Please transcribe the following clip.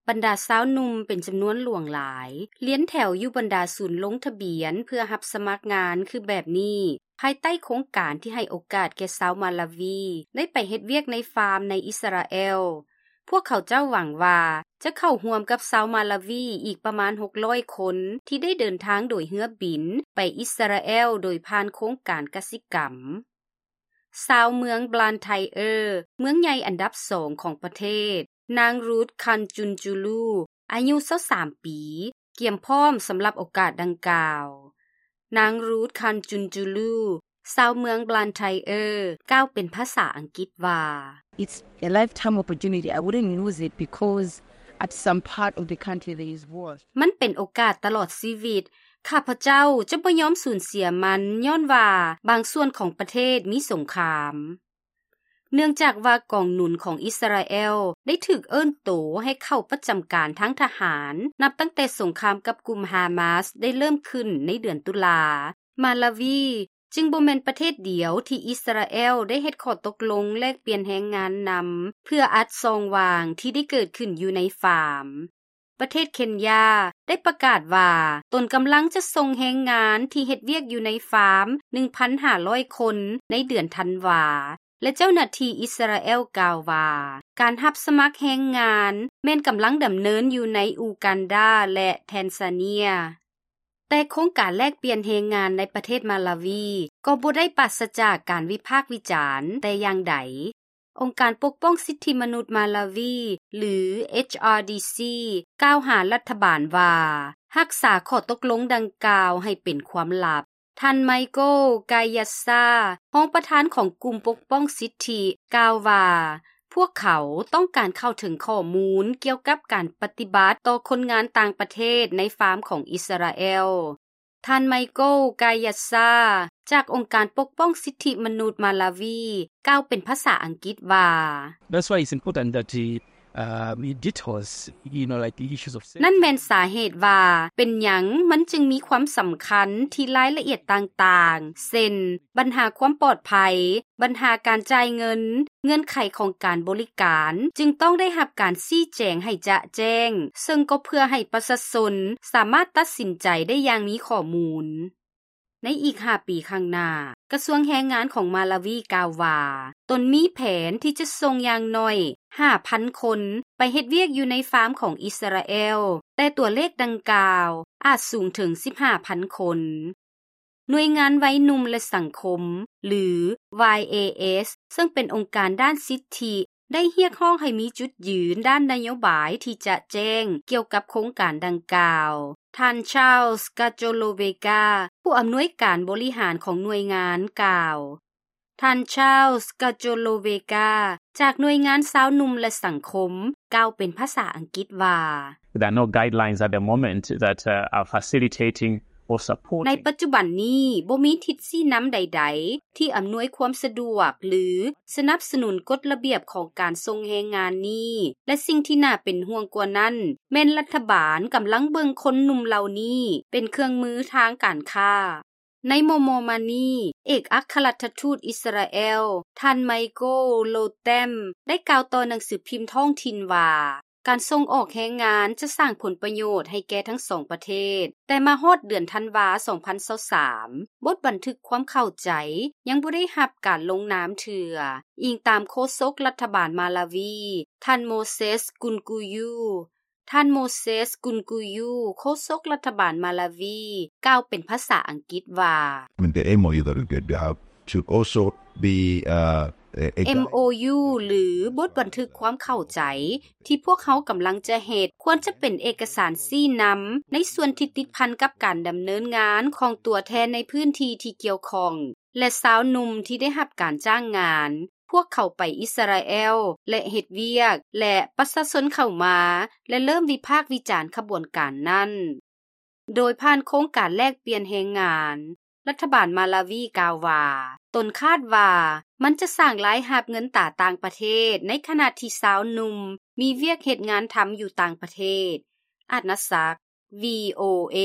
ບັນດາຊາວໜຸ່ມເປັນຈຳນວນຫຼວງຫຼາຍ ລຽນແຖວຢູ່ບັນດາສູນລົງທະບຽນເພື່ອຮັບສະໝັກງານຄືແບບນີ້ ພາຍໃຕ້ໂຄງການທີ່ໃຫ້ໂອກາດແກ່ຊາວມາລາວີໄດ້ໄປເຮັດວຽກໃນຟາມໃນອິດສະຣາແອລ. ພວກເຂົາເຈົ້າຫວັງວ່າຈະເຂົ້າຮ່ວມກັບຊາວມາລາວີອີກປະມານຫົກຮ້ອຍຄົນ ທີ່ໄດ້ເດີນທາງໂດຍເຮືອບິນໄປອິດສະຣາແອລໂດຍຜ່ານໂຄງການກະສິກຳ. ຊາວເມືອງບລານໄທເອີ ເມືອງໃຫຍ່ອັນດັບສອງຂອງປະເທດ, ນາງ Ruth Khanchunchulu ອາຍຸຊາວສາມປີ ກຽມພ້ອມສຳລັບໂອກາດດັ່ງກ່າວ. ນາງ Ruth Khanchunchulu ຊາວເມືອງບລານໄທເອີ ກ່າວເປັນພາສາອັງກິດວ່າ It's a lifetime opportunity. I wouldn't lose it because at some part of the country there is war. ມັນເປັນໂອກາດຕະຫຼອດຊີວິດ. ຂ້າພະເຈົ້າຈະບໍ່ຍອມສູນເສຍມັນ ຍ້ອນວ່າບາງສ່ວນຂອງປະເທດມີສົງຄາມ. ເນື່ອງຈາກວ່າກອງໜູນຂອງອິດສະຣາແອລໄດ້ຖືກເອີ້ນໂຕໃຫ້ເຂົ້າປະຈຳການທາງທະຫານ ນັບຕັ້ງແຕ່ສົງຄາມກັບກຸ່ມຮາມາສໄດ້ເລີ່ມຂຶ້ນໃນເດືອນຕຸລາ, ມາລາວີຈຶ່ງບໍ່ແມ່ນປະເທດດຽວທີ່ອິດສະຣາແອລໄດ້ເຮັດຂໍ້ຕົກລົງແລກປ່ຽນແຮງງານນຳ ເພື່ອອັດຊ່ອງວ່າງທີ່ໄດ້ເກີດຂຶ້ນຢູ່ໃນຟາມ. ປະເທດເຄນຢາໄດ້ປະກາດວ່າຕົນກຳລັງຈະສົ່ງແຮງງານທີ່ເຮັດວຽກຢູ່ໃນຟາມ ໜຶ່ງພັນຫ້າຮ້ອຍຄົນໃນເດືອນທັນວາ ແລະ ເຈົ້າໜ້າທີ່ອິດສະຣາແອລກ່າວວ່າ ການຮັບສະໝັກແຮງງານແມ່ນກຳລັງດຳເນີນຢູ່ໃນອູກັນດາ ແລະ ແທນຊາເນຍ. ແຕ່ໂຄງການແລກປ່ຽນແຮງງານໃນປະເທດມາລາວີກໍບໍ່ໄດ້ປາສະຈາກການວິພາກວິຈານແຕ່ຢ່າງໃດ. ອົງການປົກປ້ອງສິດທິມະນຸດມາລາວີ ຫຼື ເອຈອາດີຊີ ກ່າວຫາລັດຖະບານວ່າ ຮັກສາຂໍ້ຕົກລົງດັ່ງກ່າວໃຫ້ເປັນຄວາມລັບ. ທ່ານ ໄມໂກ ກາຍາຊາ ຮອງປະທານຂອງກຸ່ມປົກປ້ອງສິດທິ ກ່າວວ່າ ພວກເຂົາຕ້ອງການເຂົ້າເຖິງຂໍ້ມູນກ່ຽວກັບການປະຕິບັດຕໍ່ຄົນງານຕ່າງປະເທດໃນຟາມຂອງອິດສະຣາແອລ. ທ່ານ ໄມໂກ ກາຍາຊາ ຈາກອົງການປົກປ້ອງສິດທິມະນຸດມາລາວີ ກ່າວເປັນພາສາອັງກິດວ່າ That's why it's important that the, uh, it details, you know, like, the issues of safety. ນັ້ນແມ່ນສາເຫດວ່າເປັນຫຍັງມັນຈຶ່ງມີຄວາມສຳຄັນທີ່ລາຍລະອຽດຕ່າງໆ ເຊັ່ນ ບັນຫາຄວາມປອດໄພ, ບັນຫາການຈ່າຍເງິນ, ເງື່ອນໄຂຂອງການບໍລິການ ຈຶ່ງຕ້ອງໄດ້ຮັບການຊີ້ແຈງໃຫ້ຈະແຈ້ງ, ເຊິ່ງກໍເພື່ອໃຫ້ປະຊາຊົນສາມາດຕັດສິນໃຈໄດ້ຢ່າງມີຂໍ້ມູນ. ໃນອີກຫ້າປີຂ້າງໜ້າ, ກະຊວງແຮງງານຂອງມາລາວີກ່າວວ່າ ຕົນມີແຜນທີ່ຈະສົ່ງຢ່າງໜ້ອຍຫ້າພັນຄົນໄປເຮັດວຽກຢູ່ໃນຟາມຂອງອິດສະຣາແອລ, ແຕ່ຕົວເລກດັ່ງກ່າວອາດສູງເຖິງສິບຫ້າພັນຄົນ. ໜ່ວຍງານໄວໜຸ່ມ ແລະ ສັງຄົມ ຫຼື ວາຍເອເອສ ເຊິ່ງເປັນອົງການດ້ານສິດທິ ໄດ້ຮຽກຮ້ອງໃຫ້ມີຈຸດຢືນດ້ານນະໂຍບາຍທີ່ຈະແຈ້ງກ່ຽວກັບໂຄງການດັ່ງກ່າວ. ທ່ານ Charles Cacholoveca ຜູ້ອຳນວຍການບໍລິຫານຂອງໜ່ວຍງານກ່າວ. ທ່ານ Charles Cacholoveca ຈາກໜ່ວຍງານຊາວໜຸ່ມ ແລະ ສັງຄົມ ກ່າວເປັນພາສາອັງກິດວ່າ There are no guidelines at the moment that, uh, are facilitating or supporting. ໃນປັດຈຸບັນນີ້ບໍ່ມີທິດຊີ້ນຳໃດໆ ທີ່ອຳນວຍຄວາມສະດວກ ຫຼື ສະໜັບສະໜູນກົດລະບຽບຂອງການສົ່ງແຮງງານນີ້ ແລະ ສິ່ງທີ່ໜ້າເປັນຫ່ວງກວ່ານັ້ນ ແມ່ນລັດຖະບານກຳລັງເບິ່ງຄົນໜຸ່ມເຫຼົ່ານີ້ເປັນເຄື່ອງມືທາງການຄ້າ. ໃນມໍ່ໆມານີ້, ເອກອັກຄະລັດຖະທູດອິດສະຣາແອລ ທ່ານ ໄມໂກ ໂລແຕມ ໄດ້ກ່າວຕໍ່ໜັງສືພິມທ້ອງຖິ່ນວ່າ ການສົ່ງອອກແຮງງານຈະສ້າງຜົນປະໂຫຍດໃຫ້ແກ່ທັງສອງປະເທດ, ແຕ່ມາຮອດເດືອນທັນວາ ສອງພັນຊາວສາມ ບົດບັນທຶກຄວາມເຂົ້າໃຈຍັງບໍ່ໄດ້ຮັບການລົງນາມເທື່ອ, ອີງຕາມໂຄສົກລັດຖະບານມາລາວີ ທ່ານ ໂມເຊສ ກຸນກູຢູ. ທ່ານ ໂມເຊສ ກຸນກູຢູ ໂຄສົກລັດຖະບານມາລາວີ ກ່າວເປັນພາສາອັງກິດວ່າ I mean, the M O U that we have should also be, uh, a, a ເອັມໂອຢູ ຫຼື ບົດບັນທຶກຄວາມເຂົ້າໃຈ ທີ່ພວກເຮົາກຳລັງຈະເຮັດ ຄວນຈະເປັນເອກະສານຊີ້ນຳ ໃນສ່ວນທີ່ຕິດພັນກັບການດຳເນີນງານຂອງຕົວແທນໃນພື້ນທີ່ທີ່ກ່ຽວຂ້ອງ ແລະ ຊາວໜຸ່ມທີ່ໄດ້ຮັບການຈ້າງງານ ພວກເຂົາໄປອິດສະຣາແອລ ແລະ ເຮັດວຽກ ແລະ ປະຊາຊົນເຂົ້າມາ ແລະ ເລີ່ມວິພາກວິຈານຂະບວນການນັ້ນ. ໂດຍຜ່ານໂຄງການແລກປ່ຽນແຮງງານ, ລັດຖະບານມາລາວີກ່າວວ່າ ຕົນຄາດວ່າມັນຈະສ້າງລາຍຮັບເງິນຕາຕ່າງປະເທດ ໃນຂະນະທີ່ຊາວໜຸ່ມມີວຽກເຮັດງານທຳຢູ່ຕ່າງປະເທດ. ອາດນະສັກ ວີໂອເອ.